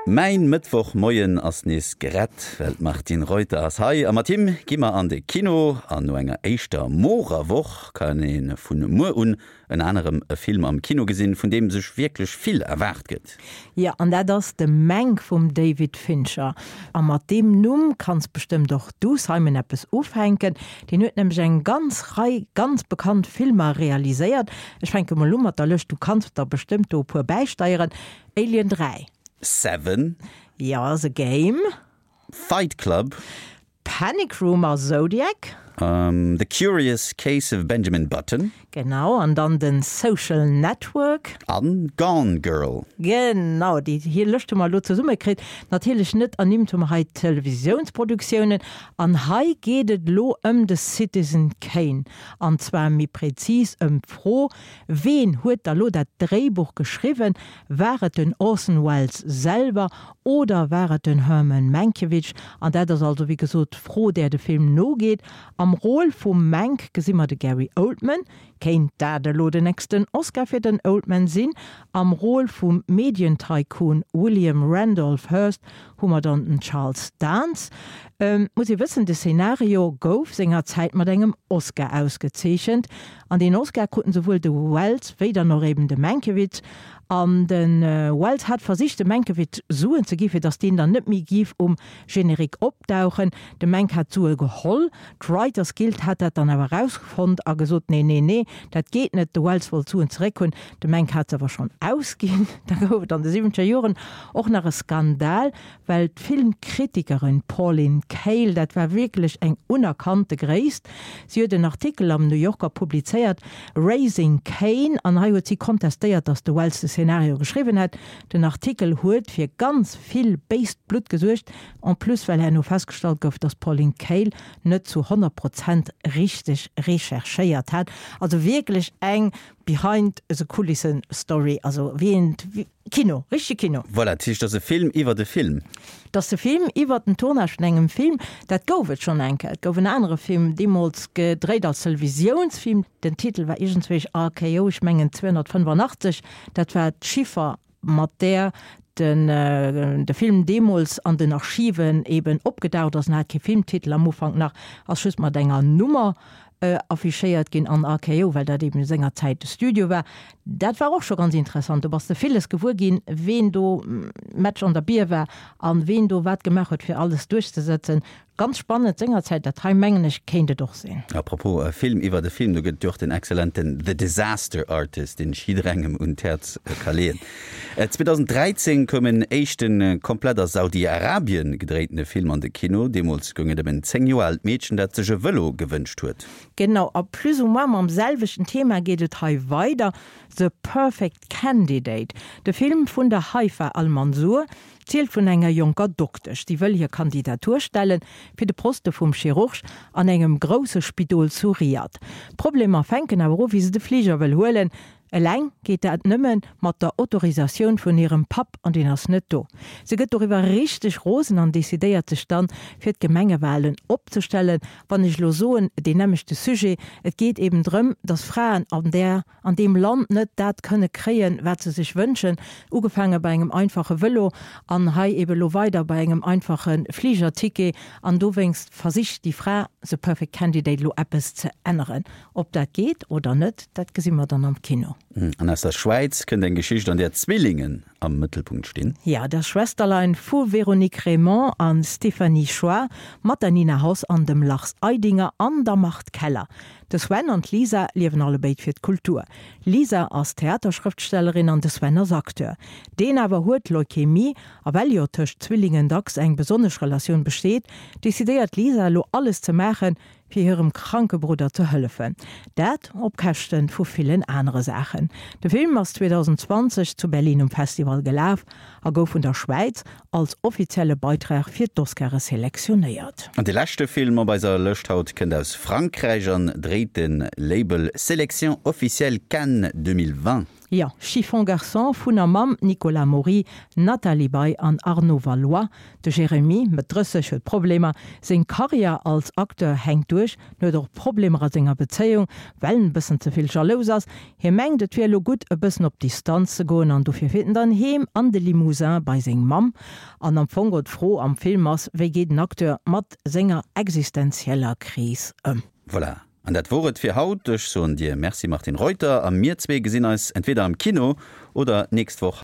Mäin Mëttwochmoien ass nees gerett, well d'Martine Reuter ass hei a mat him gi mer an de Kino. An no enger éischter morer Woch kann ee vun muer un ënner anerem e Film am Kino gesinn, vun deem sech wierklech vill erwaart gëtt. Jo, an dat ass de Mank vum David Fincher. A mat deem Numm kanns bestëmmt och du, Simon, eppes ufänken. Deen huet nämlech eng ganz Rei ganz bekannt Filmer realiséiert. Ech fänke mol u mat der Lëscht, du kanns der bestëmmt do e puer bäisteieren, Alien 3. Seven. Jo, The Game. Fight Club. Panic Room a Zodiac. The Curious Case of Benjamin Button. Genau, an dann den Social Network. An Gone Girl. Genau, déi hir Lëscht hu mer elo zesummekritt. Natierlech net ernimmt hu mer hei d'Televisiounsproductiounen. An hei geet et elo ëm de Citizen Kane. An zwar méi prezis ëm d'Fro, Ween huet da lo dat Dréibuch geschriwwen? War et den Orson Welles selwer oder war et den Herman Mankiewicz? An dat ass also wéi gesot d'Fro, där de Film nogeet. Am Rôle vum Mank gesi mer de Gary Oldman. Kéint dat elo den nächsten Oscar fir den Oldman sinn? Am Rôle vum Medientycoon William Randolph Hearst hu mer dann den Charles Dance. Muss ee wëssen, de Szenario gouf sengerzäit mat engem Oscar ausgezeechent. An deen Oscar kruten souwuel de Welles wéi dann och eben de Mankiewicz. An de Welles hat versicht dem Mankiewicz Suen ze gi fir datt deen dann net méi giff um Générique opdauchen. De Mank hat d'Sue geholl. D'Writers Guild hat dat dann awer erausfonnt a gesot, nee, nee, nee, dat geet net. De Welles wollt d'Suen zeréck hunn. De Mank hat se awer schonn ausginn. Da gouf et an de siwwenzeger Joren och nach e Skandal, Well d'Filmkritikerin Pauline Kael, dat war wierklech eng unerkannte Gréisst, si huet en Artikel am New Yorker publizéiert, Raising Cain, an hei huet si kontestéiert, datt de Wells de Szenario geschriwwen hätt. Den Artikel huet fir ganz vill béist Blutt gesuergt, en plus well herno festgestallt gouf, datt d'Pauline Kael net zu 100 Prozent richteg recherchéiert hat. Also wierklech eng Behind the Kulissen Story, also wéi een Kino, richtege Kino. Voilà, dat heescht, et ass e Film iwwert e Film. Et ass e Film iwwert den Tournage vun engem Film. Dat gouf et schonn eng Kéier. Et gouf en anere Film, deemools gedréit als Televisiounsfilm. Den Titel war iergendzwéi RKO, ech mengen 285. Dat war d'Chiffer, mat där den de Film deemools an den Archiven eben opgedaucht ass. En hat kee Filmtitel am Ufank nach, ass just mat enger Nummer affichéiert ginn an RKO, well dat eben sengerzäit de Studio war. Dat war och scho ganz interessant. Do bass de villes gewuer ginn, ween do Match an der Bier war an ween do wat gemaach huet, fir alles duerchzesetzen. Ganz spannend sengerzäit. Dat hei, mengen ech, kéint et och sinn. A propos Film iwwert e Film, do gëtt et jo och den exzellenten The Disaster Artist, deen ech jidderengem un d'Häerz ka leeën. 2013 koum en éischte komplett a Saudi-Arabien gedréintene Film an de Kino. Deemools goung et ëm en 10 Joer aalt Meedchen, dat sech e Vëlo gewënscht huet. Genau, a plus ou moins mam selwechten Thema geet et hei weider, The Perfect Candidate. De Film vun der Haifa Al-Mansour zielt vun enger jonker Doktesch, déi wëll hir Kandidatur stellen fir de Poste vum Chirurg an engem grousse Spidol zu Riyadh. D'Problemer fänken awer u wéi se de Fliger wëll huelen. Eleng geet dat nëmme mat der Autorisatioun vun hirem Papp, an deen ass net do. Se gëtt doriwwer richteg rosen an decidéiert sech dann, fir d'Gemengewalen opzestellen. Wann ech elo soen, deen nämmlechte Sujet, et geet eben drëm, datt Fraen an där, an deem Land net dat kënne kréien, wat se sech wënschen, ugefaange bei engem einfache Vëlo an hei eben elo weider bei engem einfache Fligerticket. An dowéinst versicht déi Fra, The Perfect Candidate, elo eppes ze änneren. Ob dat geet oder net, dat gesi mer dann am Kino. An aus der Schwäiz kënnt eng Geschicht, an där Zwillingen am Mëttelpunkt stinn. Jo, Das Schwesterlein vu Véronique Reymond a Stéphanie Choi, mat der Nina Hoss an dem Lars Eidinger an der Marthe Keller. De Sven an d'Lisa liewen allebéid fir d'Kultur. D'Lisa ass Theaterschrëftstellerin an de Sven ass Acteur. Deen awer huet Leukämie a well jo tëscht Zwillingen dacks eng besonnesch Relatioun besteet, decidéiert d'Lisa elo alles ze maachen, fir hirem kranke Brudder ze hëllefen. Dat op Käschte vu villen anere Saachen. De Film ass 2020 zu Berlin um Festival gelaf a gouf vun der Schwäiz als offizielle Beitrag fir d'Oscare selektionéiert. An de leschte Film op eiser Lëscht haut kënnt aus Frankräich an dréit de Label Sélection officielle Cannes 2020. Jo, Chiffon Garçon vun a mam Nicolas Maury, Nathalie Baye an Arnaud Valois. De Jérémy, Mëtt 30, huet Problemer. Seng Karriär als Acteur hänkt duerch. En huet och Problemer a senger Bezéiung, well en e bëssen ze vill jalous ass. Hie mengt, et wier elo gutt, e bëssen op Distanz ze goen an dofir fiert en dann heem an de Limousin bei seng Mamm. An am Fong geholl d'Fro am Film ass, wéi geet en Acteur mat senger existenzieller Kris ëm? Voilà, an dat wor et fir haut. Ech soen dir Merci Martine Reuter a mir zwee gesinn eis entweder am Kino oder nächst Woch.